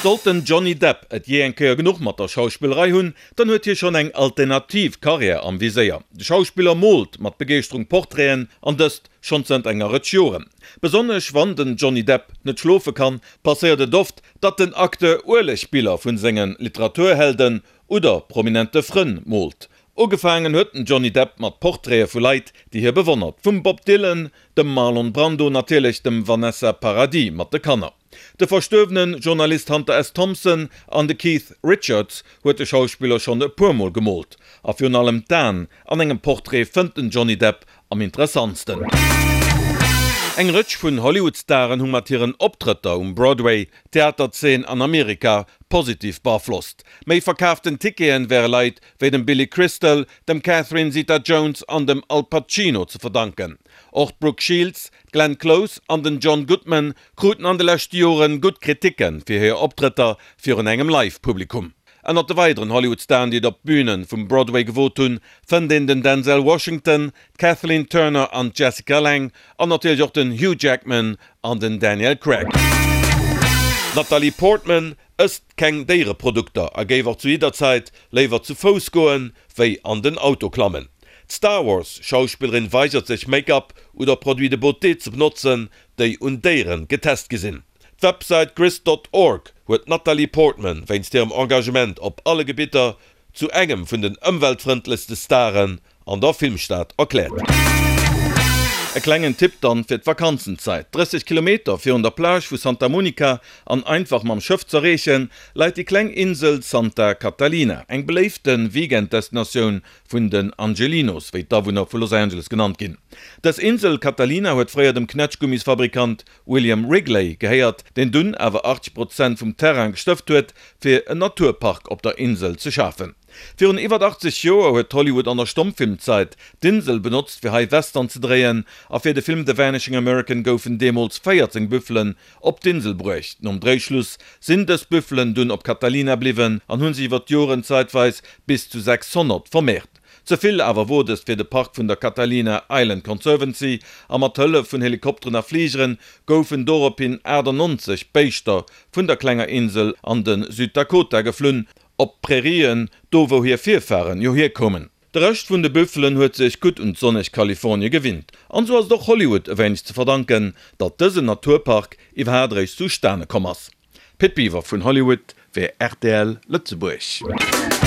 Sollt den Johnny Depp et jee eng Kéier genuch mat der Schauspillerei hunn, dann huet hie schonn eng alternativ Karriär am Viséier. De Schauspiller moolt mat Begeeschterung Portraiten, an dëst schonn zënter enger Rëtsch Joren. Besonnesch wann den Johnny Depp net schlofe kann, passéiert et oft, datt den Acteur Uelegbiller vun senge Literaturhelden oder prominente Frënn moolt. Ugefaangen huet den Johnny Depp mat Portraite vu Leit, déi hie bewonnert, vum Bob Dylan, dem Marlon Brando, natierlech dem Vanessa Paradis mat de Kanner. De verstuerwene Journalist Hunter S. Thompson an de Keith Richards huet de Schauspiller schonn e puer Mol gemoolt. A virun allem d'Aen an engem Portrait fënnt den Johnny Depp am interessantsten. Eng Rëtsch vun Hollywood-Staren hu mat hiren Optrëtter um Broadway d'Theaterzeen an Amerika positiv beaflosst. Méi verkaaften Ticketen wäre Leit wéi dem Billy Crystal, dem Catherine Zeta-Jones an dem Al Pacino ze verdanken. Och d'Brooke Shields, d'Glenn Close an den John Goodman kruten an de leschte Jore gutt Kriticke fir hir Optrëtter virun engem Live-Publikum. Ënnert de weideren Hollywood-Staren, déi et op d'Büne vum Broadway gewot hunn, fënnt een den Denzel Washington, d'Kathleen Turner an d'Jessica Lange an natierlech och den Hugh Jackman an den Daniel Craig. D'Natalie Portman ësst keng Déiereprodukter a géif och zu jidder Zäit léiwer zu Fouss goen, wéi an den Auto klammen. D'Star Wars-Schauspillerin weigert sech Make-up oder Produits de beauté ze benotzen, déi un Déiere getest gi sinn. D'Websäit Grist dot org huet d'Natalie Portman wéinst hirem Engagement op alle Gebitter zu engem vun den ëmweltfrëndlechste Staren an der Filmstad erkläert. E klengen Tipp dann fir d'Vakanzenzäit, 30 Kilometer virun der Plage vu Santa Monica an einfach mam Schëff z'erreechen, läit déi kleng Insel Santa Catalina, eng beléifte Weekenddestinatioun vun den Angelinos, wéi d'Awunner vu Los Angeles genannt ginn. Dës Insel Catalina huet fréier dem Knätschgummisfabrikant William Wrigley gehéiert, deen dunn awer 80 Prozent vum Terrain gestëft huet, fir en Naturpark op der Insel ze schafen. Virun iwwert 80 Joer huet Hollywood an der Stommfilmzait d'Insel benotzt, fir hei Western ze dréien, a fir de Film The Vanishing American goufen deemools 14 Büffelen op d'Insel bruecht. Nom Dréischluss sinn dës Büffelen dunn op Catalina bliwwen an hu sech iwwer d'Joren zeitweis bis zu 600 vermehrt. Ze vill awer wor dëst fir de Park vun der Catalina Island Conservancy a mat Hëllef vun Helikopteren a Fligeren goufen dorophin 98 Béischter vun der klenger Insel an de Süddakota geflunn, op d'Prairien, do wou hir Virfaren jo hierkoumen. De Rescht vun de Büffelen huet sech gutt un d'sonneg Kalifornie gewinnt. An sou ass et och Hollywood e wéineg ze verdanken, datt dësen Naturpark iwwerhaat eréischt zustane komm ass. Pit Biwer vun Hollywood fir rtl Lëtzebuerg.